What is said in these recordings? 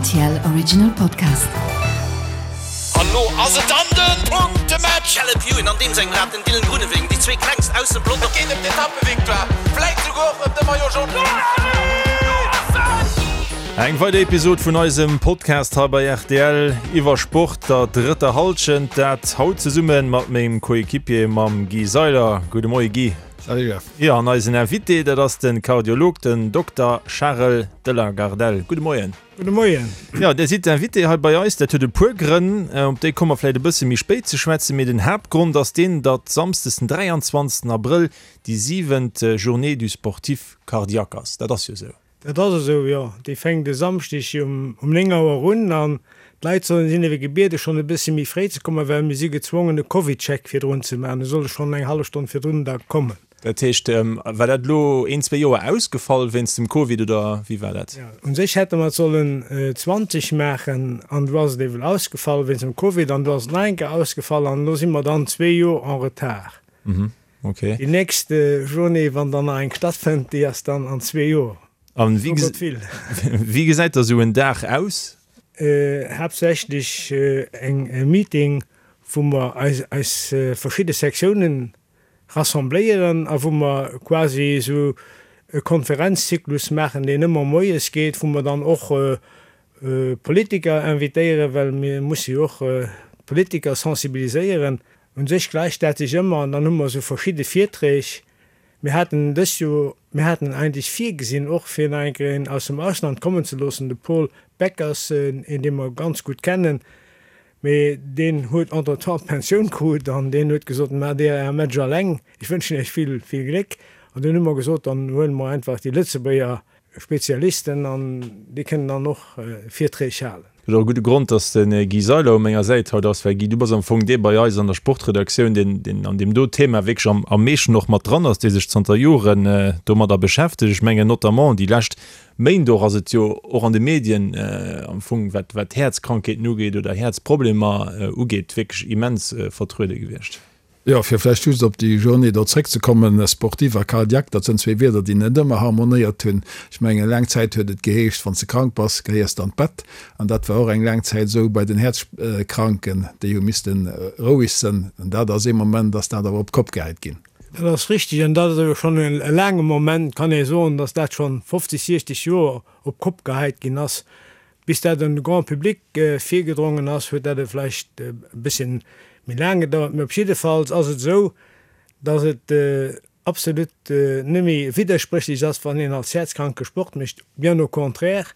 RTL Original Podcast. An lo ass et dann den Punktematch! Caleb Ewan an deem sengem Rad, den Dylan Groenewegen, déi zwee klengst aus dem Pelotong. Et geet ëm d'Etappevictoire, vläit souguer och ëm de Maillot Jaune. Eng weider Episod vun eisem Podcast hei bei rtl iwwer Sport, der drëtter Hallschent. Dat haut zesumme mat mengem Coéquipier, mam Guy Seiler. Gudde Moie Guy. Salut Jeff. Jo, an eisen Invité, dat ass de Kardiolog, den Dokter Charel de la Gardelle. Gudde Moien. Gudde Moien. Jo, Dir sidd Invité hei bei eis. Dat huet e puer Grënn, op déi komme mer vläicht e bësse méi spéit ze schwätzen. Mee den Haaptgrond ass deen, datt samsdes den 23. Abrëll déi siwent Journée du sportif cardiaque ass. Dat ass jo esou. Dat ass esou, jo. Déi fänkt e Samschdeg um 9 Auer un an d'Leit sollen, sinn ewéi gebiede schonn e bëssi méi fréi ze kommen, well mir si gezwongen e Covidcheck virdrun ze maachen. Da soll e schonn eng hallef Stonn virdrun da kommen. Dat heescht, war dat elo een, zwee Joer ausgefall wéinst dem Covid oder wéi war dat? Jo, u sech hätte mer et sollen 20 maachen an du ass et ewell ausgefall wéinst dem Covid an du ass et nach eng Kéier ausgefall an elo si mer dann zwee Joer en retard. Okay. Déi nächst Journée, wann dann nach eng stattfënnt, déi ass dann an zwee Joer. An So Gott will. wéi gesäit da sou en Dag aus? Haaptsächlech eng e Meeting, wou mer eis eis verschidde Sektiounen rassembléieren a wou mer quasi esou e Konferenzzyklus maachen, deen ëmmer moies geet, wou mer dann och Politiker invitéieren, well mir musse jo och d'Politiker sensibiliséieren. Un sech gläicht dat sech ëmmer an dann hu mer esou verschidde Virträg. Mir haten dëst Joer, mir haten eigentlech virgesinn och fir nach eng Kéier een aus dem Ausland kommen ze loossen, de Paul Beckers, een dee mer ganz gutt kennen, mee deen huet entretemps d'Pensioun krut an deen huet gesot, Maacht Dir Äre Match alleng, ech wënschen Iech vill, vill Gléck. An dunn hu mer gesot, dann huele mer einfach déi Lëtzebuerger Spezialisten an déi kënnen dann och Virträg halen. Et ass och e gudde Grond, dass de Guy Seiler u menger Säit haut ass, well Guy, du bass am Fong dee bei eis an der Sportredaktioun, deen, deen an deem do Thema wierklech am, am meeschten och mat dran ass, dee sech zanter Joren domadder beschäftegt. Ech mengen notamment déi lescht Méint och ass et jo och an de Medien am Fong, wat, wat Häerzkrankheeten ugeet oder Häerzproblemer ugeet, wierklech immens vertruede gewiescht. Jo, fir vläicht just op déi Journée do zréckzekommen, sportif a cardiaque, dat sënn zwee Wierder, déi net ëmmer harmonéiert hunn. Ech mengen, laang Zäit huet et geheescht, wann s de krank bass, gehéiers de an d'Bett. An dat war och eng laang Zäit esou bei den Häerzkranken, déi hu misste roueg sënn. An dat ass ee Moment, ass dat awer op d'Kopp gehäit ginn. Dat ass richtig an dat ass awer schonn e laange Moment, kann ee soen, datt dat schonn 50, 60 Joer op d'Kopp gehäit ginn ass. Bis dat un de Grand public virgedrongen ass, huet dat e vläicht e bësschen méi laang gedauert. Mee op jiddefalls ass et esou, datt et absolut net méi widderspréchlech ass, wann een als Häerzkranke Sport mécht. Bien au contraire,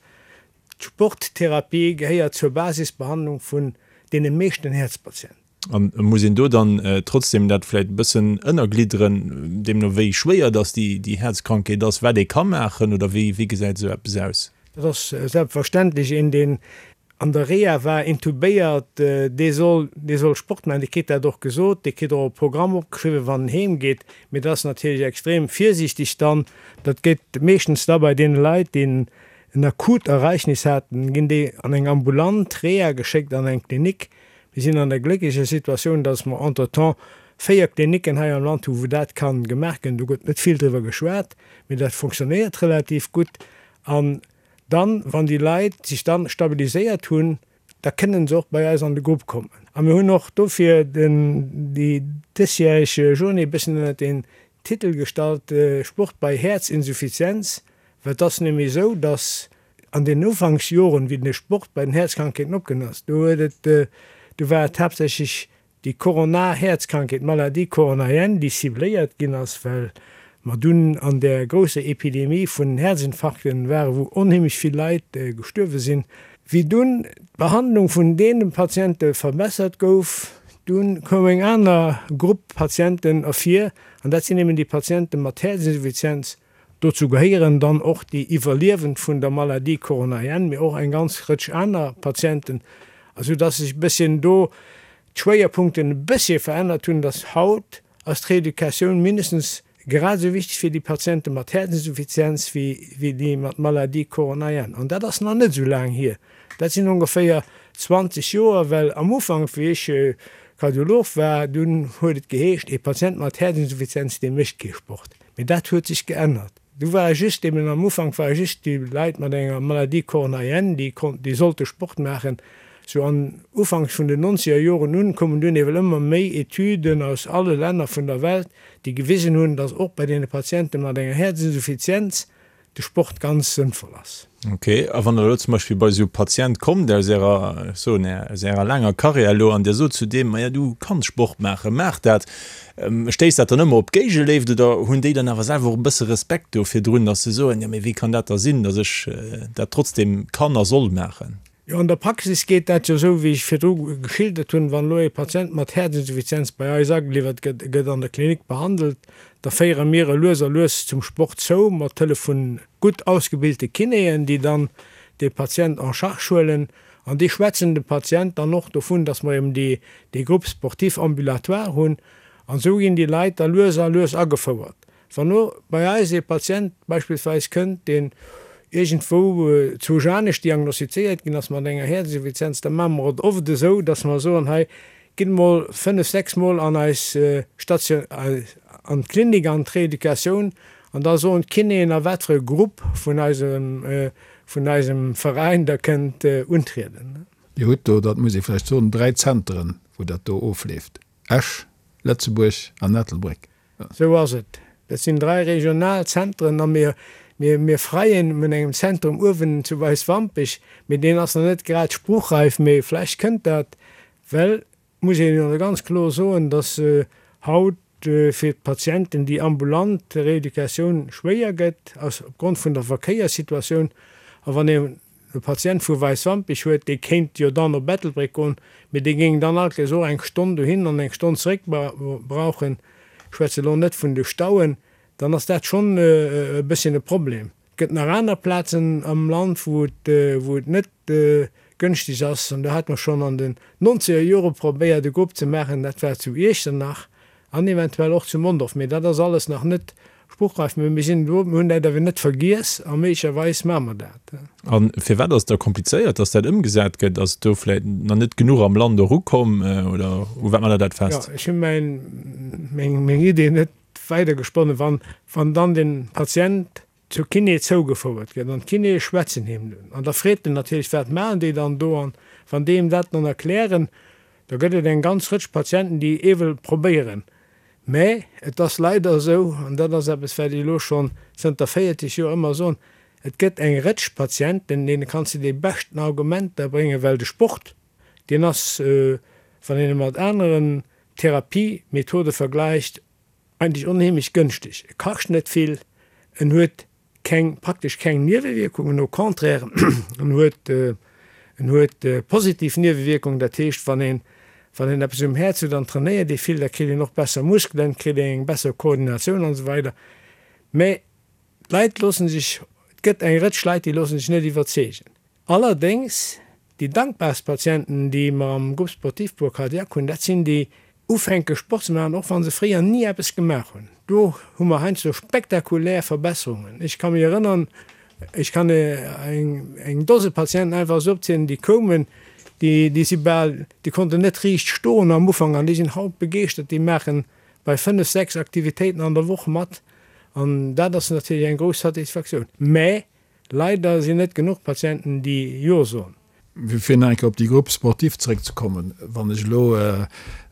d'Sporttherapie gehéiert zur Basisbehandlung vun deene meeschten Häerzpatienten. An muss een do dann trotzdem dat vläicht e bëssen ënnerglidderen, deemno wéi schwéier dass déi Häerzkrankheet ass, wat ee ka maachen oder wéi wéi gesäit esou eppes aus? Dat ass selbstverständlech. Een deen an der Reha war, intubéiert, dee soll dee soll Sport maachen, dee kritt dat och gesot, dee kritt och e Programm opgeschriwwen, wann en heem geet. Mee dat ass natierlech extrem virsiichteg dann. Dat geet meeschtens da bei deene Leit, déi en akut Ereignis haten, ginn déi an eng ambulant Reha geschéckt, an eng Klinik, Mir sinn an der glécklecher Situatioun, dass mer entretemps 4 Klinicken hei am Land hu wou dat ka gemaach ginn. Do gëtt net vill driwwer geschwat, mee dat fonctionnéiert relativ gutt. An dann, wann déi Leit sech dann stabiliséiert hunn, da kënnen se och bei eis an de Grupp kommen. A mir hunn och dofir den, déi dësjäreg Journée e bëssen ënnert den Titel gestallt, Sport bei Häerzinsuffizienz, well et ass nämlech esou, dass An den Ufanksjoren, wéi de Sport bei den Häerzkrankheeten opkomm ass, do huet et, do war et haaptsächlech déi koronar Häerzkrankheet, d'Maladie coronarienne, déi cibléiert ginn ass, well mer dunn an där grousser Epidemie vun Häerzinfarkten waren, wou onheemlech vill Leit gestuerwe sinn. Wéi dunn d'Behandlung vun deene Patiente verbessert gouf, dunn koum eng aner Grupp Patienten ervir, an dat sinn eben déi Patiente mat Häerzinsuffizienz, Dozou gehéieren dann och déi Iwwerliewend vun der Maladie coronarienne, mee och eng ganz Rëtsch aner Patienten, esou dass sech e bësschen do d'Schwéierpunkten e bëssche verännert hunn, dass haut ass d'Reeducatioun mindestens grad esou wichteg fir déi Patiente mat Häerzinsuffizienz wéi déi mat Maladie coronarienne. An dat ass nach net esou laang hier, dat sinn ongeféier 20 Joer, well am Ufank, wéi ech Kardiolog war, dunn huet et geheescht, ee Patient mat Häerzinsuffizienz, dee mécht kee Sport. Mee dat huet sech geännert. Du ware just eben am Ufank ware just déi Leit mat enger Maladie coronarienne, déi konnten, déi sollte Sport maachen. Sou an ufanks vun den nonzeger Joren un koumen dunn ewell ëmmer méi Etüden aus alle Länner vun der Welt, déi gewisen hunn, datt och bei deene Patiente mat enger Häerzinsuffizienz de Sport ganz sënnvoll ass. Ok, a wann Der elo zum Beispill bei esou e Patient kommt aus Ärer, ech soen, aus Ärer laanger Karriär elo an Dir sot zu deem, Maja, du kanns Sport maachen, maach dat, stéisst dat dann ëmmer op Géigeléift oder hunn déi dann awer selwer och e bësse Respekt do virdrun, datt se soen, jo mee wéi kann dat da sinn, datt ech dat trotzdem kann a soll maachen? Jo, an der Praxis geet dat jo esou, wéi ech virdru geschildert hunn. Wann elo ee Patient mat Häerzinsuffizienz bei eis ageliwwert gëtt, e gëtt an der Klinik behandelt, da féiere mir e lues a lues zum Sport zou, mat Hëllef vu gutt ausgebilte Kinéen, déi dann dee Patient en charge huelen. An déi schwätzen dem Patient dann och dovun, dass mer eben déi, dee Groupe sportif ambulatoire hunn. An esou ginn déi Leit da lues a lues agefouert. Wann elo bei eis ee Patient beispillsweis kënnt, deen iergendwou zu Janesch diagnostizéiert ginn ass mat enger Häerzinsuffizienz, da maache mer et oft esou, dass mer soen, hei, gitt emol fënnef, sechs Mol an eis Station, an d'Klinik, an d'Reeducatioun, an da soen d'Kinéen, a wat fir e Grupp vun eisem, vun eisem Veräin Der kënnt untrieden. Dir hutt do, dat muss ee vläicht soen, dräi Zenteren, wou dat do ofleeft, Esch, Lëtzebuerg an Ettelbréck. Sou ass et. Dat sinn 3 regional Zentren a mir, mir, mir freien un engem Zentrum uewen zu Weiswampech, mee deen ass nach net grad spruchreif, mee vläicht kënnt dat, well muss een jo ganz kloer soen, dass haut fir d'Patienten déi ambulant Rééducatioun schwéier gëtt, aus opgrond vun der Verkéierssituatioun. A wann ee e Patient vu Weiswampich huet, dee kéint jo dann op Ettelbréck goen, mee dee géing dann alt nees och eng Stonn dohin an eng Stonn zeréck brauchen, ech schwätze elo net vun de Stauen, dann ass dat schonn e bësschen e Problem. Et gëtt nach aner Plazen am Land, wou et, wou et net gënschteg ass, an do hate mer schonn an den nonzeger Jore probéiert e Grupp ze maachen, dat war zu Iechternach an eventuell och zu Mondorf, mee dat ass alles nach net spruchreif. Mee mir sinn do, mir hunn dat awer net vergiess a méiglecherweis maache mer dat. A firwat ass et da komplizéiert, dass dat ëmgesat gëtt? Ass do vläicht nach net genuch am Land erukomm oder u wat maacht Der dat fest? Jo, ech hu mäin, meng, meng Idee net weidergesponnen. Wann, wann dann de Patient zur Kiné zougefouert gëtt an d'Kinéë schwätzen him dunn an da freet en natierlech, wat maachen déi dann do an wann déi him dat dann erklären, da gëtt et eng ganz Rëtsch Patienten, déi ewell probéieren. Mä et ass leider esou, an dat ass eppes, wat ech elo schonn zënter 40 Joer ëmmer soen, et gëtt eng Rëtsch Patienten, deene kanns de déi beschten Argumenter bréngen, well de Sport, deen ass, wann een e mat aneren Therapiemethode vergläicht, Eigentlech onheemlech gënschteg. E kascht net vill, en huet keng, praktesch keng Niewewierkungen, au contraire, en huet, en huet positiv Niewewierkungen. Dat heescht, wann een, wann een eppes um Häerz huet an trainéiert ee vill, da kritt een och besser Muskelen, kritt een eng besser Koordinatioun an esou weider. Mä d'Leit loosse sech, et gëtt eng Rëtsch Leit, déi loosse sech net iwwerzeegen. Allerdéngs, déi dankbarst Patienten, déi mer am Groupe sportif pour cardiaque hunn, dat sinn déi ufänke Sport ze maachen, och wa se fréier ni eppes gemaach hunn. Do hu mer heiansdo spektakulär Verbesserungen. Ech ka mech erënnern, ech kann eng Dose Patienten einfach esou opzielen, déi koumen, déi, déi si bal, déi konnten net riicht stoen am Ufank an déi sinn haut begeeschtert, déi maache bei fënnef, sechs Aktivitéiten an der Woch mat an dat ass natierlech eng grouss Satisfaktioun. Mä Leider sinn net genuch Patienten déi Jo soen. Fir nach eng Kéier op déi Groupe sportive zeréckzekommen, Wann ech elo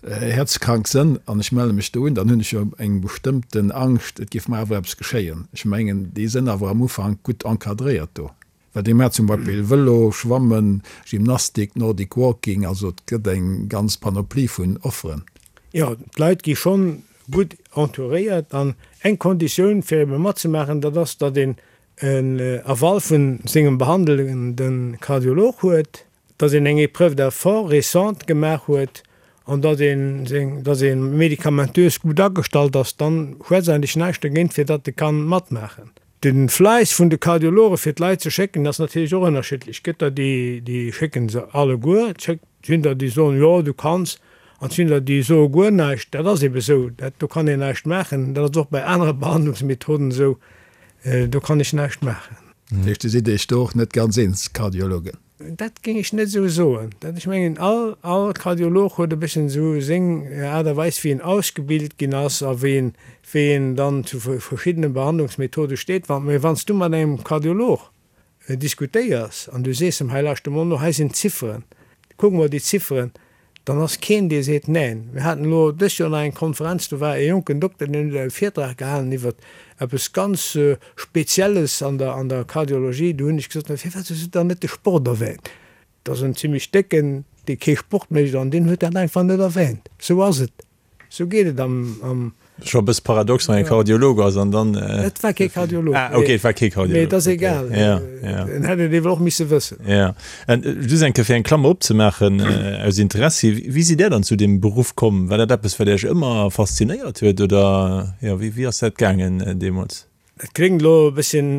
häerzkrank sënn an ech melle mech do un, dann hunn ech jo eng bestëmmten Angscht, et géif mer awer eppes geschéien. Ech mengen, déi sënn awer am Ufank gutt encadréiert do. Well déi maachen zum Beispill Vëlo, Schwammen, Gymnastik, Nordic Walking, also et gëtt eng ganz Panoplie vun Offeren. Jo, d'Leit gi schonn gutt entouréiert an eng Konditioun fir ebe matzemaachen, dat ass, datt een en Aval vun sengem behandelende Kardiolog huet, datt een eng Épreuve d'effort récente gemaach huet an datt een seng, datt ee medikamentös gutt agestallt ass, dann schwätzt eigentlech näischt dergéint fir datt e kann matmaachen. De Fläiss vun de Kardiologe fir d'Leit ze schécken ass natierlech och ënnerschiddlech. Et gëtt der déi, déi schécken se alleguer, et sinn der déi soen, jo du kanns, an et sinn der déi soe guer näischt. Dat ass ebe sou, dat do kann een näischt maachen. Dat ass och bei anere Behandlungsmethoden esou. Do kann ech näischt maachen. Dat heescht, Dir sidd Iech do och net ganz eens, Kardiologen? Dat géing ech net esou soen. Dat, ech mengen, all, all Kardiolog huet e bësschen esou seng Aart a Weis, wéi en ausgebilt ginn ass a wéi en, wéi en dann zu verschiddene Behandlungsmethode steet. Wann, mä wann s du mat engem Kardiolog diskutéiers an du sees em, hei lauschter mol no, hei sinn d'Zifferen, kuck mol déi Zifferen, dann ass keen dee seet neen. Mir haten elo dëst Joer nach eng Konferenz, do war e jonken Dokter, deen huet e Virtrag gehalen iwwer eppes ganz Spezielles an der an der Kardiologie. Do hunn ech gesot, firwat hues du dann net de Sport erwähnt? Dat ass en zimmlech décken, dee kee Sport mécht an deen huet dat einfach net erwähnt. Sou ass et. Sou geet et am. Scho e bësse paradox, wann ee Kardiolog ass an dann. Et war kee Kardiolog. Ah, okay, et war kee Kardiolog. Mee et ass egal. Ja, ja. En hätt et ewell och misse wëssen. Ja. An just eng Kéier fir eng Klammer opzemaachen, aus Interessi, Wéi sidd Där dann zu deem Beruff komm? War dat eppes, wat Iech ëmmer faszinéiert huet oder, jo, wéi, wéi ass dat gaangen deemools? Dat kléngt elo e bësschen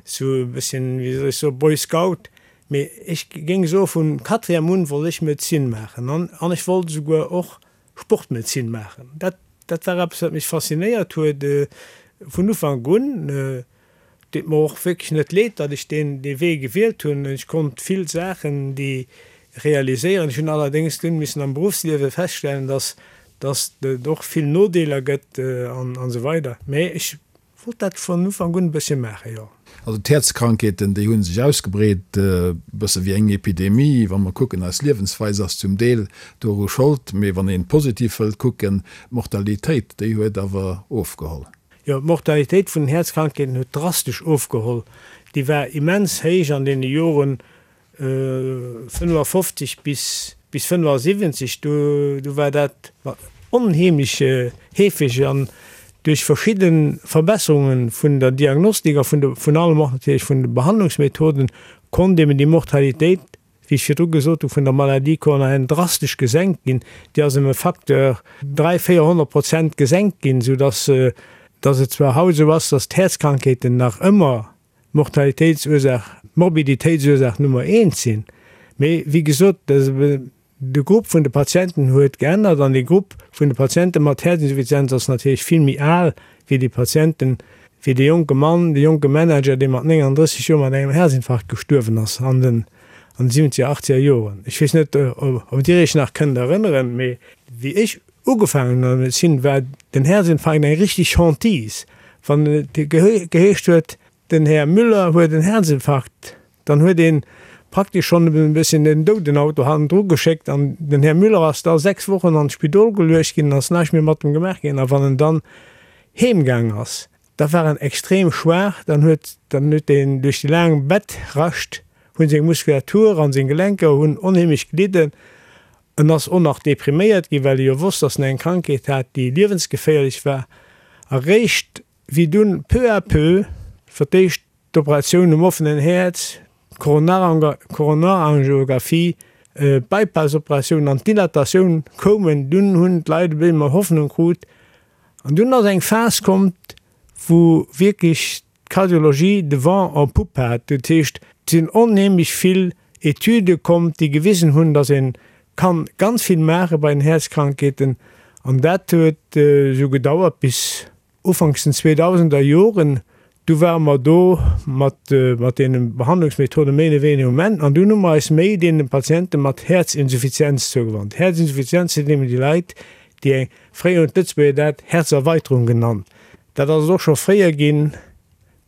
sou e bësschen, wéi soll ech soen, Boy Scout, mee ech géing soe vun Quatrième un wollt ech Medezin maachen an an ech wollt esouguer och Sportmedezin maachen. Dat dat war eppes wat mech faszinéiert huet vun Ufank un. Deet mer och wierklech net leed, datt ech deen dee Wee gewielt hunn. Ech konnt vill Saachen déi realiséieren. Ech hunn allerdéngs dunn missen am Beruffsliewe feststellen, datt dass et och vill Nodeeler gëtt an esou weider. Mee ech wollt dat vun Ufank un e bëssche maachen, jo. Also d'Häerzkrankheeten, déi hu sech ausgebreet, e bësse wéi eng Epidemie. Wa mer kucken, eis Liewensweis ass zum Deel doru Schold. Mee wann een positiv wëllt kucken, d'Mortalitéit, déi huet awer ofgeholl. Jo, d'Mortalitéit vun den Häerzkrankheeten huet drastesch ofgeholl. Déi war immens héich an deene Joren 55 bis bis 75, do do war dat onheemlech heefeg an duerch verschidde Verbesserunge vun der Diagnostik a vun de vun allem och natierlech vun de Behandlungsmethoden konnt eben déi Mortalitéit, wéi ech virdru gesot hu, vun der Maladie coronarienne drastesch gesenkt ginn. Déi ass ëm e Facteur 3, 400 Prozent gesenkt ginn, soudass dass et zwar haut esou ass, dass d'Häerzkrankheeten nach ëmmer Mortalitéitsursaach, Morbiditéitsursaach Nummer eent sinn. Mee wéi gesot, de Grupp vun de Patienten huet geännert an dee Grupp vun de Patiente mat Häerzinsuffizienz ass natierlech vill méi al wéi déi Patienten, wéi dee jonke Mann, dee jonke Manager, dee mat 39 Joer mat engem Häerzinfarkt gestuerwen ass an den an de siwwenzeger, achtzeger Joren. Ech weess net, ob Dir Iech nach kënnt erënneren, mee wéi ech Ugefaangen an der Medezin war den Herzinfarkt eng richtig Hantise. Wann et geheescht huet, den Här Müller huet en Herzinfarkt, dann huet ee praktesch schonn e bësschen den Doudenauto hannendru geschéckt an den Här Müller ass da 6 Wochen an d'Spidol geluecht ginn an ass näischt méi mat em gemaach ginn. A wann en dann heemgaang ass, da war en extrem schwaach, dann huet dann huet deen duerch déi laang Bettrascht hunn seng Muskulatur an seng Gelenker hunn onheemlech gelidden En ass och nach depriméiert ginn, well e jo wosst, dass en eng Krankheet hat, déi liewensgeféierlech war. A réischt wéi dunn peu à peu fir d'éischt d'Operatioun um offenen Häerz, d'Koronarangiographie, d'Bypass-Operatioun an d'Dilatatioun koumen, dunn hunn d'Leit e bëssi méi Hoffnung krut. An dunn ass eng Phas komm, wou wierklech d'Cardiologie de vent en poupe hat. Dat heescht, et sinn onheemlech vill Etüde komm, déi gewisen hunn, datt ee kann ganz vill maache bei den Häerzkrankheeten. An dat huet esou gedauert bis ufanks den zweedausender Joren. Du ware mer do mat mat deene Behandlungsmethode méi oder wéiniger um Enn. An dunn hu mer eis méi deene Patiente mat Häerzinsuffizienz zougewannt. Häerzinsuffizienz sinn eben déi Leit, déi eng, fréier hunn d'Lëtzebuerger dat Häerzerweiterung genannt, Dat ass et och scho fréier ginn,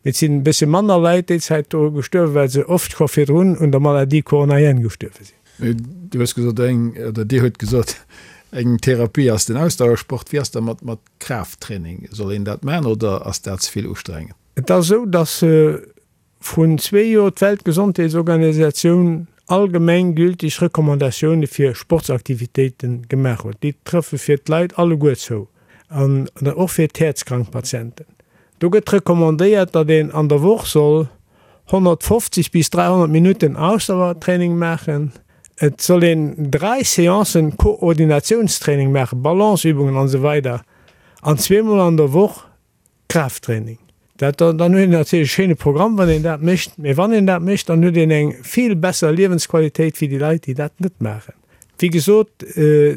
mee et sinn e bëssche manner Leit déi Zäit doru gestuerwen, well se oft scho virdrun un der Maladie coronarienne gestuerwe sinn. Du hues gesot, eng, oder Dir hutt gesot, eng Therapie ass den Ausdauersport. Wéi ass da mat mat Kraafttraining? Soll een dat maachen oder ass dat ze vill ustrengend? Et ass esou, dass Vrun zwee Joer d'Weltgesondheetsorganisatioun allgemeng gültig Recommandatioune fir Sportsaktivitéite gemaach huet. Déi trëffe fir d'Leit alleguer zou an och fir d'häerzkrank Patienten. Do gëtt recommandéiert, datt een an der Woch soll 150 bis 300 Minutten Ausdauertraining maachen. Et soll een 3 Seancen Koordinatiounstraining maachen, Balanceübungen an esou weider an zweemol an der Woch Kraafttraining. Dat, dann huet een natierlech e schéine Programm, wann een dat mécht. Mee wann een dat mécht, dann huet een eng vill besser Liewensqualitéit wéi déi Leit, déi dat net maachen. Wéi gesot,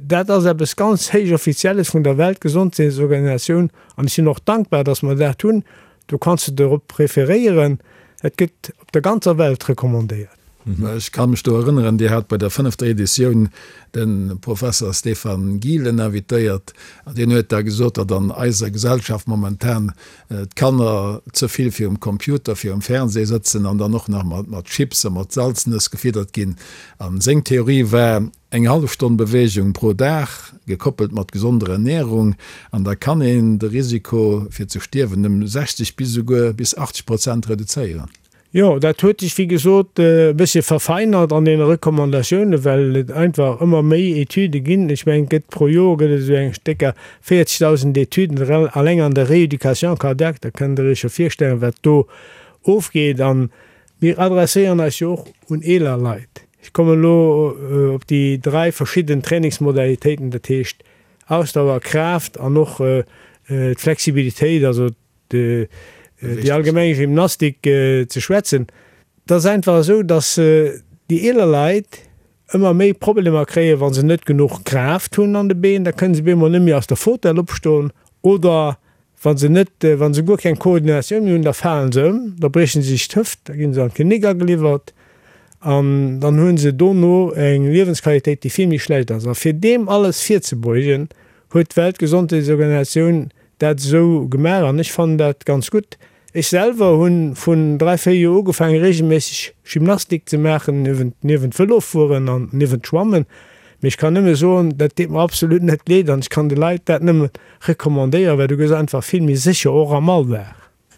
dat ass eppes ganz héich Offizielles vun der Weltgesondheetsorganisatioun an ech sinn och dankbar, datt mer dat hunn. Do kanns de dorop referéieren. Et gëtt op der ganzer Welt recommandéiert. Ech ka mech do erënneren, Dir hat bei der fënnefter Editioun de Professer Stefan Gielen invitéiert an deen huet da gesot, datt an eiser Gesellschaft momentan d'Kanner ze vill virum Computer, virum Fernseh sëtzen an dann och nach mat Chips a mat Salznëss gefiddert ginn. A seng Theorie war, Eng hallef Stonn Beweegung pro Dag, gekoppelt mat gesonder Ernärung, an da kann een de Risiko fir ze stierwen ëm 60 bis esouguer bis 80 Prozent reduzéieren. Jo, dat huet sech wéi gesot e bëssche verfeinert an deene Recommandatiounen, well et einfach ëmmer méi Etüde ginn. Ech mengen, et gëtt pro Joer gëtt et esou eng stécker 40.000 Etüden alleng an der Rééducation cardiaque. Da kënnt Der Iech jo virstellen, wat do ofgeet. A mir adresséieren eis jo och un eeler Leit. Ech kommen elo op déi dräi verschidden Trainingsmodalitéiten, dat heescht Ausdauer, Kraaft an och d'Flexibilitéit, also déi allgemeng Gymnastik ze schwätzen. Et ass einfach esou, datt déi eeler Leit ëmmer méi Problemer kréien, wa se net genuch Kraaft hunn an de Been, da kënne se bemol net méi aus der Fautel opstoen oder wa se net, wa se guer keng Koordinatioun méi hunn, da falen se ëm, da brieche se sech d'Hëft, da gi se an d'Klinik ageliwwert an dann hu se dono eng Liewensqualitéit, déi vill méi schlecht ass. A fir deem alles virzebeugen, huet d'Weltgesondheetsorganisatioun dat esou gemaach an ech fannen dat ganz gutt. Ech selwer hunn vun 3, 4 Joer ugefaangen regelméisseg Gymnastik ze maachen, niewent niewent Vëlofueren an niewent Schwammen. Mee ech kann nëmme soen, dat deet mer absolut net leed an ech kann de Leit dat nëmme recommandéieren, well du gëss einfach vill méi sécher och am Alldag.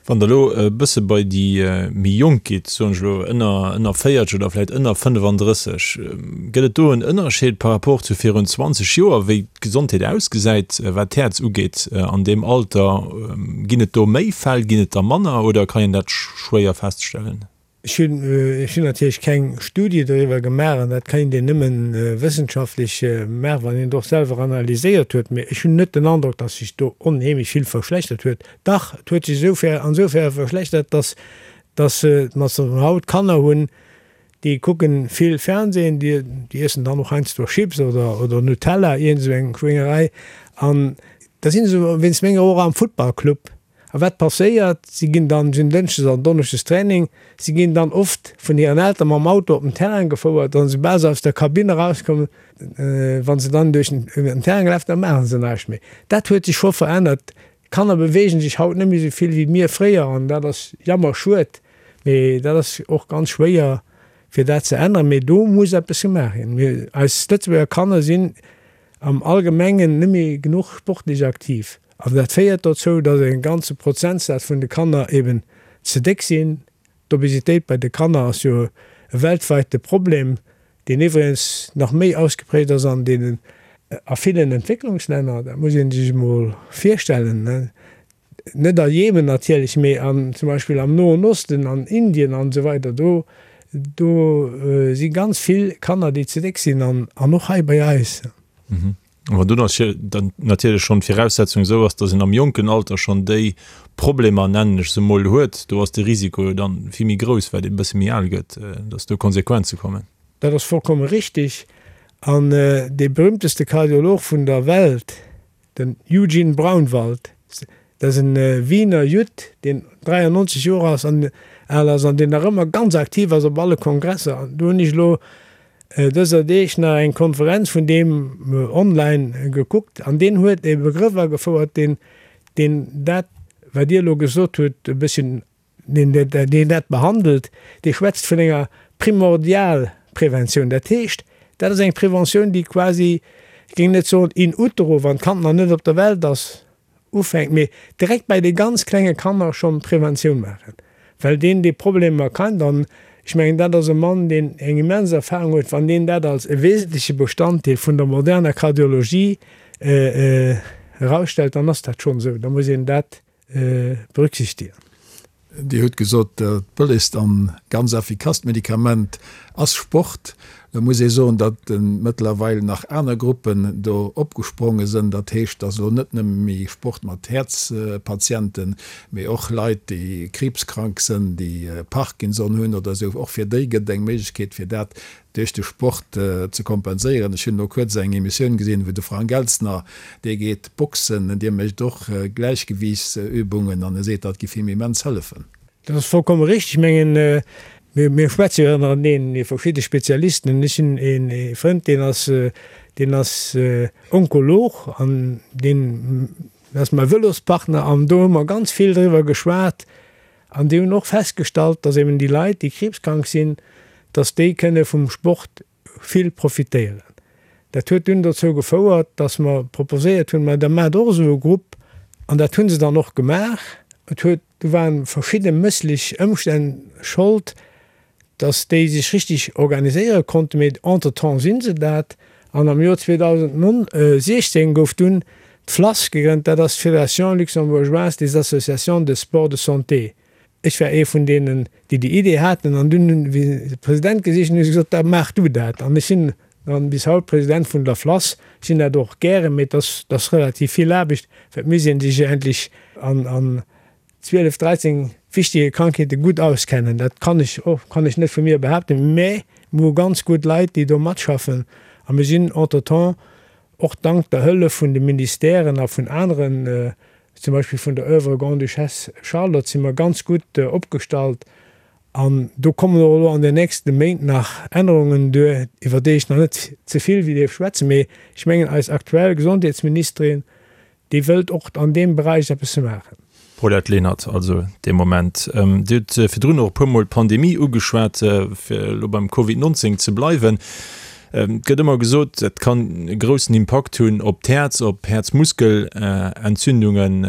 Wann Der elo e bësse bei déi méi Jonk gitt, soen ech elo ënner, ënner 40 oder vläicht ënner 35, gëtt et do en Ënnerscheed par rapport zu virun 20 Joer, wéi d'Gesondheet ausgesäit, wat d'Häerz ugeet an deem Alter? Ginn et do méi Fäll, ginn et der manner oder kann een dat schwéier feststellen? Ech hunn, ech hunn natierlech keng Studie doriwwer gemaach an dat kéint een nëmmen wëssenschaftlech maachen, wann een et och selwer analyséiert huet, mee ech hunn net den Androck, datt sech do onheemlech vill verschlechtert huet. Dach, et huet sech esoufer, ansoufern verschlechtert, datt, datt mer haut Kanner hunn, déi kucken vill Fernsehen, déi, déi iessen dann och heiansdo Chips oder, oder Nutella, iergend esou eng Schwéngerei an da sinn se wéinst menger och am Futtballclub. A wat passéiert? Si ginn dann, si hunn dënschdes an donneschdes Training, si ginn dann oft vun hiren Elteren mam Auto op den Terrain gefouert an soubal se aus der Kabinn erauskommen, wa se dann duerch den Terrain gelaf, da maache se näischt méi. Dat huet sech scho verännert. D'Kanner beweegen sech haut net méi esou vill wéi mir fréier an dat ass jammerschued, mee dat ass och ganz schwéier fir dat ze änneren. Mee do muss eppes gemaach ginn. Mir, eis Lëtzebuerger Kanner sinn am Allgemengen net méi genuch sportlech aktiv. An dat féiert dozou, datt e ganze Prozentsaz vun de Kanner eben ze déck sinn. D'Obesitéit bei de Kanner ass jo e weltweite Problem, deen iwwregens nach méi ausgeprägt ass an deenen, a villen Entwécklungslänner. Dat muss ee sech emol virstellen. Net a Jemen natierlech, mee an zum Beispill am Noen Osten, an Indien an esou weider, do, do si ganz vill Kanner, déi ze déck sinn an, an och hei bei eis. Wann do dann natierlech schonn d'Viraussetzung esou ass, datt een am jonken Alter schonn déi Problemer, nennen ech se emol, huet, do ass de Risiko jo dann vill méi grouss, wat ee bësse méi al gëtt, datt do Konsequenze kommen. Dat ass vollkomme richtig. An dee berühmteste Kardiolog vun der Welt, Den Eugene Braunwald, dat ass en Wiener Judd, deen 93 Joer ass an al ass an deen nach ëmmer ganz aktiv ass op alle Kongresser. An do hunn ech elo dëser Deeg nach eng Konferenz vun deem online gekuckt an deen huet e Begrëff agefouert, deen, deen dat, wat Dir elo gesot hutt, e bësschen Deen, deen dat behandelt, dee schwätzt vun enger Primordialpreventioun. Dat heescht, dat ass eng Preventioun, déi quasi, ech géing net soen in utero, wann d'Kand nach net op der Welt ass, ufänkt, mee direkt bei de ganz klenge Kanner schonn Preventioun maachen, well deen déi Problemer kennt. An ech mengen, dat ass e Mann, deen eng immens Erfahrung huet. Wann deen dat als e wesentleche Bestanddeel vun der moderner Kardiologie erausstellt, dann ass dat schonn esou. Da muss een dat berücksichtigen. Dir hutt gesot, dat bëllegst an ganz effikasst Medikament ass Sport. Lo muss ee soen, datt mëttlerweil nach aner Gruppen do opgespronge sënn. Dat heescht, datt elo net nëmme méi Sport mat Häerzpatienten, mee och Leit, déi kriibskrank sënn, déi Parkinson hunn oder esou, och fir déi gëtt et eng Méiglechkeet, fir dat duerch de Sport ze kompenséieren. Ech hunn elo kuerz eng Emissioun gesinn, wou de Frank Elstner, dee geet boxen, dee mécht och Gläichgewiichtsübungen an e seet, dat giff him immens hëllefen. Dat ass vollkomme richteg. Ech mengen, Mir schwätze jo ënnereneen, mir verschidde Spezialisten, an ech hunn ee Frënd, deen ass, deen ass Onkolog an deen ass mäi Vëlospartner an do hu mer ganz vill driwwer geschwat an déi hunn och festgestallt, datt eben déi Leit, déi kriibskrank sinn, datt déi kënne vum Sport vill profitéieren. Dat huet dunn dozou gefouert, dass mer proposéiert hunn, ma da maacht och esou e Grupp. An dat hu se dann och gemaach. Et huet, do ware verschidde mësslech Ëmstänn Schold, dass déi sech richtig organiséiere konnten, mee entretemps si se dat. An am Joer 2016 gouf dunn d'FLASS gegrënnt, dat ass d'Fédération luxembourgeoise des associations de sport de santé. Ech war ee vun deenen, déi déi Idee haten an dunn hunn, wéi se de President gesicht hunn, hu se gesot, da maach du dat. An ech sinn dann bis haut President vun der FLASS. Ech sinn dat och gären, mee et ass, et ass relativ vill Aarbecht, well et misst ee sech endlech an, an 12, 13 wichtige Krankheete gutt auskennen. Dat kann ech och, kann ech net vu mir behaapten, mä mir hu ganz gutt Leit, déi do matschaffen a mir sinn entretemps och dank der Hëllef vun de Ministèren a vun aneren, zum Beispill vun der Oeuvre Grande-Duchesse Charlotte, si mer ganz gutt opgestallt. An do kommen och elo an den nächste Méint nach Ännerungen duer, iwwer déi ech nach net ze vill dierf schwätzen. Mee ech mengen, eis aktuell Gesondheetsministerin, déi wëllt och an deem Beräich eppes maachen. Paulette Lenert, Also dee Moment. Dir hutt virdrun och e puermol d'Pandemie ugeschwat, fir elo beim Covid 19 ze bleiwen. Et gëtt ëmmer gesot, et kann e groussen Impakt hunn op d'Häerz, op Häerzmuskelentzündungen.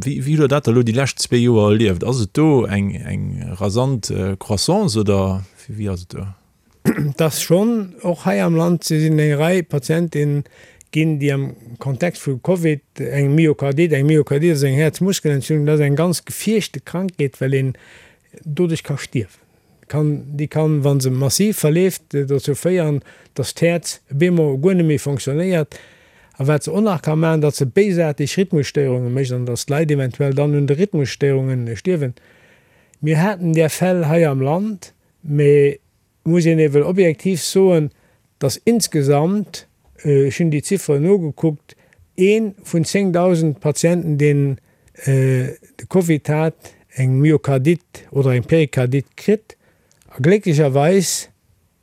Wéi hutt Der dat elo déi lescht zwee Joer erlieft? Ass et do eng rasant Croissance oder wéi ass et do? Et ass schonn och hei am Land sinn eng Rei Patienten ginn, déi am Kontext vu Covid eng Myokardit, eng Myokardit ass eng Häerzmuskelentzündung, dat ass eng ganz gefierchte Krankheet, well een doduerch ka stierwen. Kann, déi kann, wa se massiv verleeft, dozou féieren, datt d'Häerz op eemol guer net méi fonctionnéiert. A wat se och nach ka maachen, datt se béisaarteg Rhythmusstéierunge mécht an datt d'Leit eventuell dann un de Rhythmusstéierunge stierwen. Mir haten där Fäll hei am Land, mee et muss een ewell objektiv soen, datt insgesamt, ech hunn déi Zifferen nogekuckt, ee vun 10.000 Patienten, deen de Covid hat, eng Myokardit oder eng Perikardit kritt. A glécklecherweis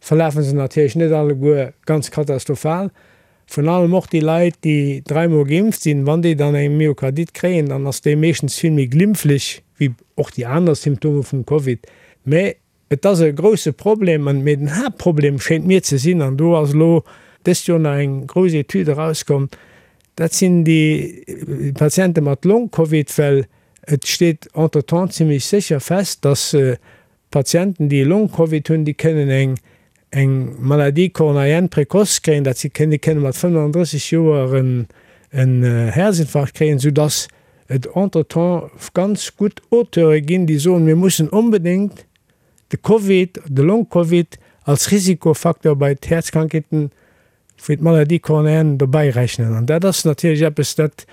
verlafe se natierlech net alleguer ganz katastrophal. Vrun allem och déi Leit, déi dräimol geimpft sinn, wann déi dann eng Myokardit kréien, dann ass déi meeschtens vill méi glimpflech wéi och déi aner Symptome vum Covid. Mä Et ass e grousse Problem, an, mee den Haaptproblem schéint mir ze sinn, an do ass elo dëst Joer nach eng grouss Etüd erauskomm, dat sinn déi Patiente mat Long-Covid, well et steet entretemps zimlech sécher fest, dass Patienten, déi Long-Covid hunn, déi kënnen eng eng Maladie coronarienne précoce kréien, dat si kënnen, déi kënne mat 35 Joer en Häerzinfarkt kréien, soudass et entretemps ganz gutt Auteure ginn, déi soen, mir mussen onbedéngt de Covid, de Long-Covid als Risikofacteur bei d'Häerzkrankheeten wéi d'Maladie coronarienne dobäi rechnen. An dat ass natierlech eppes, dat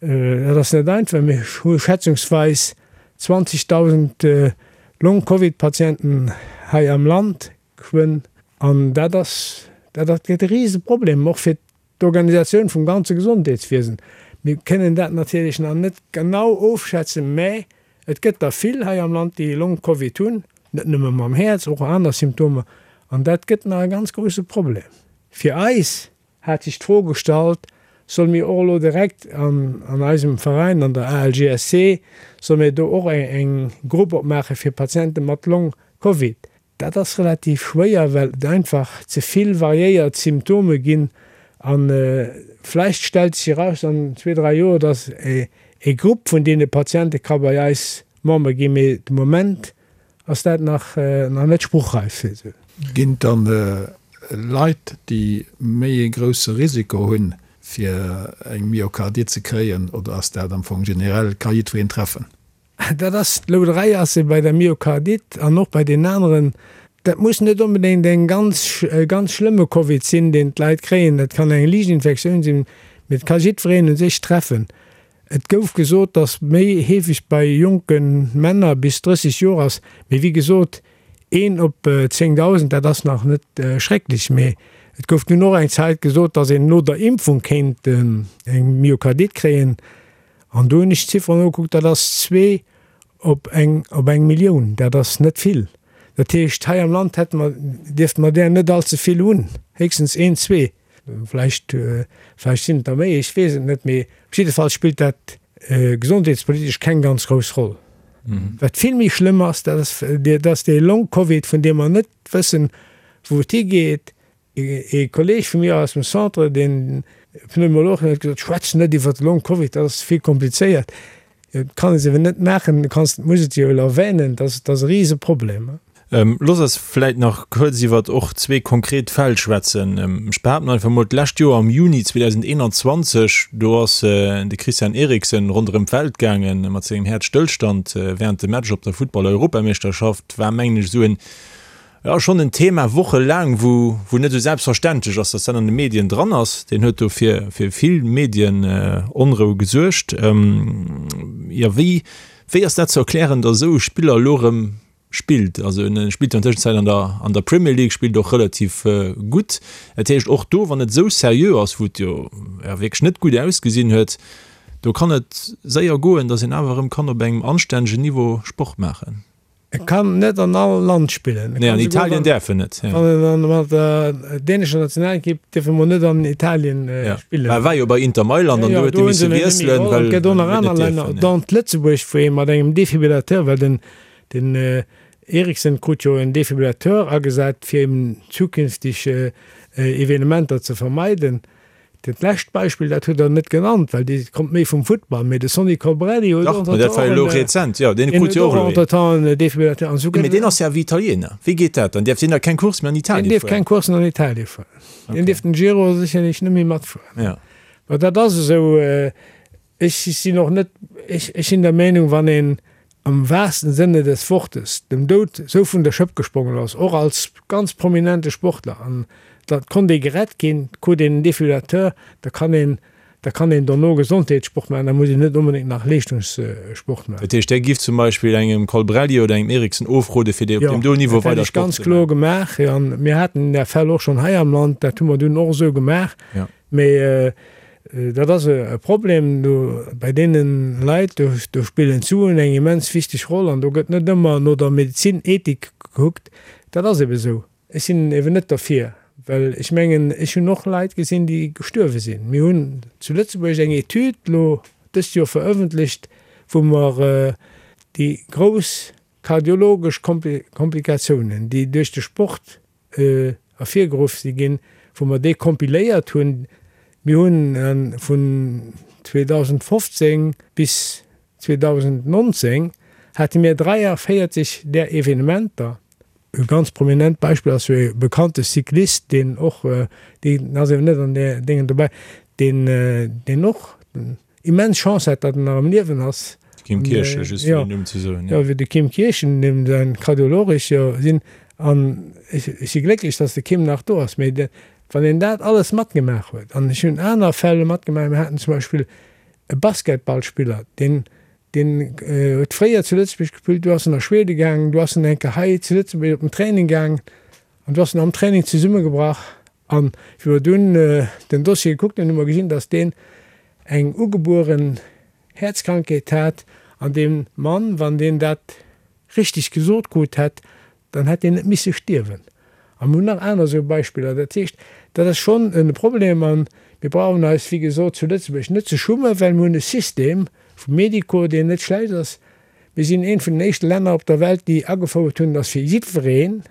dat ass net einfach. Mir hu schätzungsweis 20.000 Long-Covid-Patienten hei am Land geschwënn. An dat ass, dat ass gëtt e Riseproblem, och fir d'Organisatioun vum ganze Gesondheetswiesen. Mir kënnen dat natierlech nach net genau ofschätzen, mä et gëtt der vill hei am Land, déi Long-Covid hunn, net nëmme mam Häerz, och aner Symptomer. An dat gëtt nach e ganz grousse Problem. Fir eis hat sech d'Fro gestallt, Solle mir och elo direkt an eisem Veräin, an der ALGSC, solle mir do och eng Grupp opmaache fir Patiente mat Long-Covid? Dat ass relativ schwéier, well et einfach ze vill variéiert Symptome ginn. A vläicht stellt sech eraus an zwee, dräi Joer, datt e Grupp vun deene Patiente ka bei eis Member ginn, mee de Moment ass dat nach net spruchreif. Ginn et dann Leit, déi méi ee grousse Risiko hunn, fir eng Myokardit ze kréien, oder ass dat am Fong generell, ka jiddwereen treffen? Dat ass, d'Louderei ass e bei der Myokardit an och bei deenen aneren. Dat muss net onbedéngt eng ganz, e ganz schlëmme Covid sinn, deen d'Leit kréien. Dat kann eng liicht Infektioun sinn, mee et ka jiddwereen u sech treffen. Et gouf gesot, datt méi heefeg bei jonke Männer bis 30 Joer ass, mee wéi gesot, een op 10.000, dat ass nach net schrecklech. Mee et gouf dunn och eng Zäit gesot, datt een no der Impfung kéint eng Myokardit kréien. An do hunn ech d'Zifferen nogekuckt, dat ass zwee op eng op eng Millioun, dat ass net vill. Dat heescht, hei am Land hätte mer, dierfte mer där net allze vill hunn, héchstens een, zwee. Vläicht, vläicht sinn et der méi, ech weess et net, mee op jidde Fall spillt dat gesondheetspolitesch keng ganz grouss Roll. Wat vill méi schlëmm ass, dat ass, dat ass dee Long-Covid, vun deem mer net wëssen, wou et higeet. Ee Kolleeg vu mir aus dem Centre, deen Pneumolog, huet gesot, Schwätz net iwwer de Long-Covid, dat ass vill komplizéiert. Et kann ee se eben net maachen, du kanns, muss et jo erwänen, dat ass e Riseproblem. Looss eis vläit nach kuerz iwwert och zwee konkret Fäll schwätzen. Ech behaapten einfach emol, d'lescht Joer am Juni 2021, do ass de Christian Eriksen ronderëm d'Welt gaange mat sengem Häerzstëllstand wärend dem Match op der Futtball-Europameeschterschaft. War, mengen ech, esou en, jo, schonn en Thema wochelaang, wou, wou net esou selbstverständlech ass, datt dat an de Medien dran ass. Deen huet do fir, fir vill Medienonrou gesuergt. Jo, wéi, wéi ass dat ze erklären, datt esou e Spiller elo erëm spillt? Also en spillt jo an Tëschenzäit an der, an der Premier League, spillt och relativ gutt. Dat heescht och do, wann et esou seriö ass, wou et jo, jo wierklech net gutt ausgesinn huet, do kann et séier goen, datt een awer erëm kann op engem anstännegen Niveau Sport maachen. E kann net an all Land spillen. Nee, an Italien däerf en net. Wann en mat der dänescher Nationalekipp dierf e mol net an Italien spillen. Mä e war jo bei Inter Mailand an do huet e misse wiesselen, well et gëtt och nach aner Länner, dont Lëtzebuerg, wou ee mat engem Defibrillateur, well den den Eriksen krut jo en Defibrillateur agesat, fir eben zukünfteg Evenementer ze vermeiden. Dat lescht Beispill, dat hutt Der net genannt, well dee kommt méi vum Futtball, mee de Sonny Colbrelli huet och entretemps en Defibrillateur an esou. Mee deen ass jo awer Italiener. Wéi geet dat dann? Däerf deen da keng Course méi an Italien fueren? Deen dierf keng Courssen an Italien fueren. Deen dierf den Giro sécherlech net méi matfueren. Mä dat ass esou. Ech sinn och net, ech sinn der Meenung, wann een am wahrsten Sinne des Wortes dem Doud esou vun der Schëpp gesprongen ass, och als ganz prominente Sportler, an da konnt ee gerett ginn, krut een en Defibrillateur, da kann een, da kann een dono Gesondheetssport maachen, da muss een net onbedéngt nach Leeschtungssport maachen. Dat heescht, Där giff zum Beispill engem Colbrelli oder engem Eriksen ofrode fir déi op deem do Niveau weider Sport ze maachen? Jo, dat hätt ech ganz kloer gemaach. An mir haten där Fäll och schonn hei am Land, dat hu mer dunn och esou gemaach. Mee dat ass e Problem do bei deene Leit, do spillen d'Suen eng immens wichteg Roll an do gëtt net ëmmer no der Medezin-Ethik gekuckt. Dat ass ebe sou. Ech sinn eben net derfir, well ech mengen, ech hunn och Leit gesinn, déi gestuerwe sinn. Mir hunn zu Lëtzebuerg eng Etüd elo dëst Joer verëffentlecht, wou mer déi grouss kardiologesch Komplikatiounen, déi duerch de Sport ervirgeruff si ginn, wou mer déi kompiléiert hunn. Mir hunn vun 2015 bis 2019 hate mir 43 där Evenementer. E ganz prominent Beispill ass jo e bekannte Cyclist, deen och, deen ass eeben net an där Déngen dobäi, deen, deen och immens Chance hat, datt en nach am Liewen ass. De Kim Kirchen, just fir den Numm ze soen. Jo, wéi de Kim Kirchen, deem säin Kardiolog ech jo sinn. An ech si glécklech, datt de Kim nach do ass. Mee wann een dat alles matgemaach huet, an ech hunn aner Fäll matgemaach, mir haten zum Beispill e Basketballspiller, deen, deen huet fréier zu Lëtzebuerg gespillt, du ass en a Schwede gaangen, du ass en eng Kéier hei zu Lëtzebuerg op den Training gaangen an du ass en am Training zesummegebrach. An wéi mer dunn den Dossier gekuckt hunn, hu mer gesinn, datt deen eng ugebueren Häerzkrankheet hat. An dee Mann, wann deen dat richteg gesot krut hätt, dann hätt deen net misse stierwen. A mir hunn nach aner esou Beispiller. Dat heescht, dat ass schonn e Problem. A mir brauchen eis, wéi gesot, zu Lëtzebuerg net ze schummen, well mir hunn e System vum Médico, deen net schlecht ass. Mir sinn eent vun den éischte Länner op der Welt, déi agefouert hunn, datt fir jiddwereen,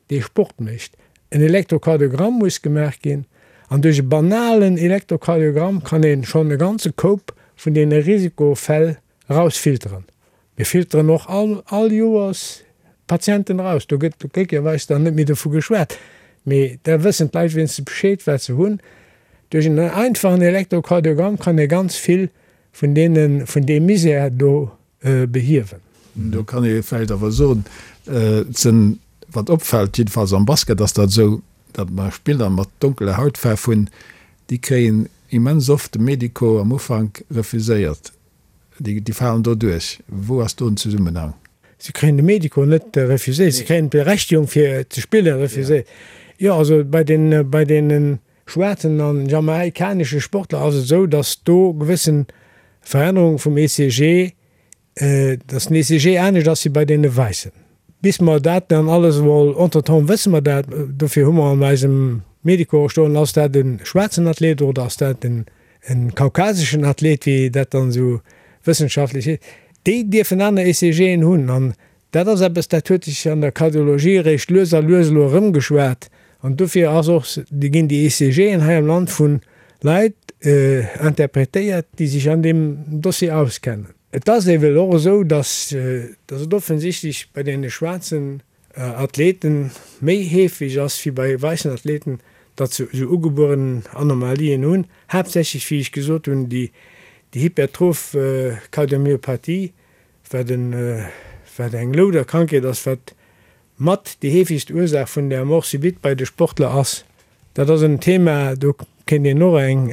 dee Sport mécht, en Elektrokardiogramm muss gemaach ginn. An duerch e banalen Elektrokardiogramm kann ee schonn e ganze Koup vun deene Risikofäll erausfilteren. Mir filteren och all all Joers Patienten eraus. Do gëtt glécklecherweis dann net méi dovu geschwat, mee da wëssen d'Leit wéinstens Bescheed, wat se hunn. Duerch en einfachen Elektrokardiogramm kann ee ganz vill vun deene vun deem Misär do behiewen. Do kann ee vläicht awer soen, et sinn, wat opfält, jiddefalls am Basket ass dat esou, datt mer Spiller mat donkeler Hautfaarf hunn, déi kréien immens oft de Medico am Ufank refuséiert. Déi falen do duerch. Wou ass do den Zesummenhang? Si kréien de Medico net refuséiert, si kréien d'Berechtigung fir ze spille refuséiert. Jo, also bei den, bei deene schwaarzen an jamaikanesche Sportler ass et esou, datt do gewëssen Verännerunge vum ECG, datt den ECG anescht ass wéi bei deene wäissen. Bis mer dat dann alles emol, entretemps wësse mer dat, dofir hu mer an eisem Medico och stoen, ass dat e schwaarzen Athlet oder ass dat en kaukaseschen Athlet, wéi dat dann esou wëssenschaftlech heescht, déi dierfen aner ECGen hunn. An dat ass eppes, dat huet sech an der Kardiologie eréischt lues a lues elo erëmgeschwat. An dofir ass och, ginn déi ECGen hei am Land vu Leit interpretéiert, déi sech an deem Dossier auskennen. Et ass ewell och esou, dass et offensichtlech bei deene schwaarzen Athleten méi heefeg ass wéi bei wäissen Athleten, datt se esou ugebueren Anomalien hunn, haaptsächlech, wéi ech gesot hunn, déi hypertroph Kardiomyopathie, wat eng Louderkrankheet ass, wat Mat déi heefegst Ursaach vun der Mort subite bei de Sportler ass. Dat ass en Thema, do kéint een och eng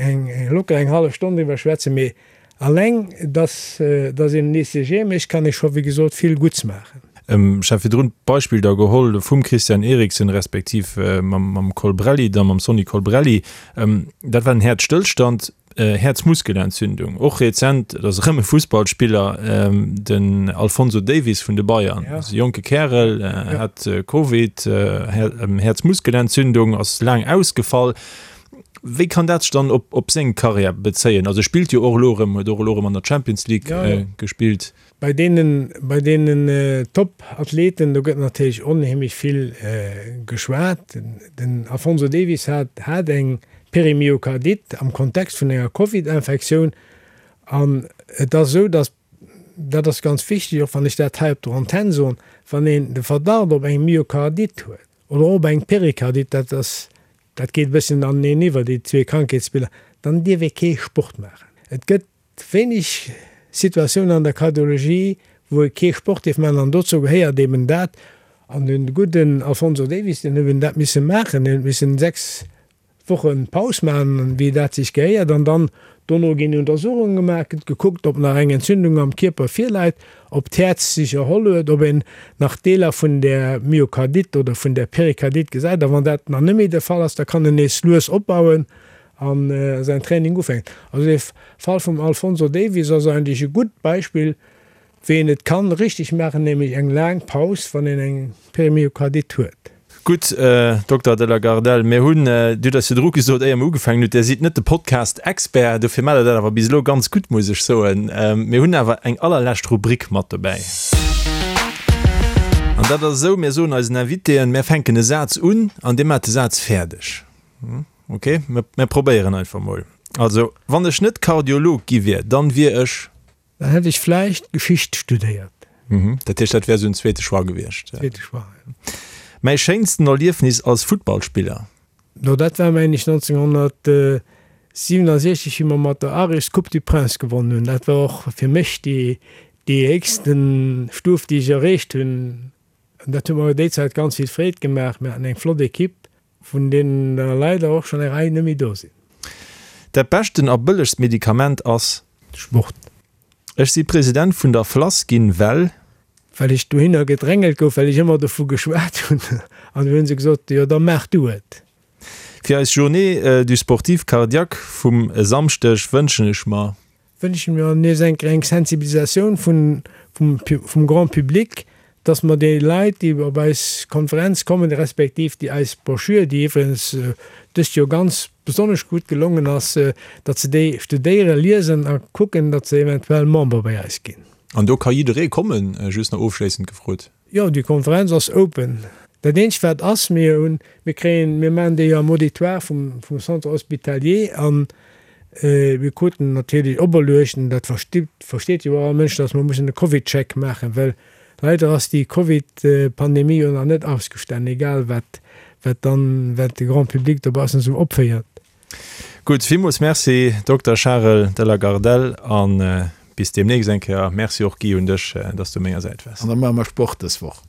locker eng hallef Stonn driwwer schwätzen, mee alleng dass dass een en ECG mécht, kann ee scho wéi gesot vill Gutts maachen. Ech hat virdrun d'Beispill da geholl vum Christian Eriksen respektiv mam Colbrelli, da mam Sonny Colbrelli. Dat war en Häerzstëllstand. Häerzmuskelentzündung, och rezent, et ass erëm e Fussballspiller, den Alphonso Davies vun de Bayern, ass e jonke Kärel, hat Covid, Häerzmuskelentzündung, ass laang ausgefall. Wéi kann dat sech dann op seng Karriär bezéien? Also e spillt jo och elo erëm, huet och elo erëm an der Champions League gespillt. Bei deenen, bei deenen Top-Athleten, do gëtt natierlech onheemlech vill geschwat. Den Alphonso Davies hat, hat eng Perimyokardite am Kontext vun enger Covid-Infektioun. An et ass esou, datt, dat ass ganz wichteg, och wann ech dat hei op der Antenn soen, wann een de Verdacht op eng Myokardite huet oder och op eng Perikardite, dat ass, dat geet e bësschen aneneen iwwer, déi zwee Krankheetsbiller, dann dierf ee kee Sport maachen. Et gëtt Wéineg Situatiounen an der Kardiologie, wou ee kee Sport dierf maachen, an dozou gehéiert eben dat. An de gudden Alphonso Davies, deen huet eben dat misse maachen, deen huet missen 6 Woche Paus maachen, wéi dat sech gehéiert, an dann dono ginn Untersuchunge gemaach, gëtt gekuckt, ob nach eng Entzündung am Kierper virläit, ob d'Häerz sech erholl huet, ob een nach Deeler vun där Myokardite oder vun där Perikardite gesäit. A wann dat nach net méi de Fall ass, da kann en nees lues opbauen an säin Training ufänken. Also dee Fall vum Alphonso Davies ass eigentlech e gutt Beispill, wéi een et kann richteg maachen, nämlech eng laang Paus, wann een eng Perimyokardite huet. Gutt, Dokter de la Gardelle, mir hunn, Dir hutt eis virdru gesot, éier mir ugefaangen hutt, Dir sidd net de Podcast-Expert, dofir maacht Der dat awer bis elo ganz gutt, muss ech soen. Mir hunn awer eng allerlescht Rubrik mat dobäi. An dat ass esou, Mir soen eisen Invitéen, mir fänken e Saz un an Dir maacht de Saz fäerdeg. Ok, mir probéieren einfach mol. Also, wann ech net Kardiolog gi wier, dann wier ech. Dann hätt ech vläicht Geschicht studéiert. Mhm, dat heescht, dat wär esou en zweete Choix gewiescht. Zweete Choix, jo. Mäi schéinsten Erliefnis als Futtballspiller? No, dat war mengen ech 1967, wéi mer mat der Aris d'Coupe du Prince gewonnen hunn. Dat war och fir mech déi héchsten Stuf, déi ech erreecht hunn. An dat huet mer déi Zäit ganz vill Freed gemaach. Mir haten eng flott Equipe. Vun deenen der leider och schonn eng Rei net méi do sinn. Dat beschten a bëllegst Medikament ass. Sport. Ech si President vun der FLASS ginn, well. Well ech dohinner gedrängelt gouf, well ech ëmmer dovu geschwat hunn. An du hunn se gesot, jo da maach du et. Fir eis Journée du sportif cardiaque vum e Samschdeg wënschen ech mer. Wënschen mir nees eng eng Sensibilisatioun vun vum Grand public, dass mer déi Leit, déi op eis Konferenz kommen, respektiv déi eis Broschür, déi iwwregens dëst Joer ganz besonnesch gutt gelongen ass, datt se déi studéieren, liesen a kucken, datt se eventuell Member bei eis ginn. An do ka jidderee kommen? Just nach ofschléissend gefrot. Jo, déi Konferenz ass open. Dat eenzegt wat ass, mir hunn, mir kréien, mir maachen déi jo am Auditoire vum, vum Centre hospitalier an mir kruten natierlech operluecht, an dat versteet, versteet jo och all Mënsch, datt mer mussen e Covidcheck maachen, well leider ass déi Covid-Pandemie jo nach net ausgestanen, egal wat, wat dann, wat de Grand public dobaussen esou opféiert. Gutt, villmools Merci Dokter Charel de la Gardelle a bis deemnächst eng Kéier. Merci och Guy un dech, dass du u menger Säit waars. An da maache mer Sport dës Woch.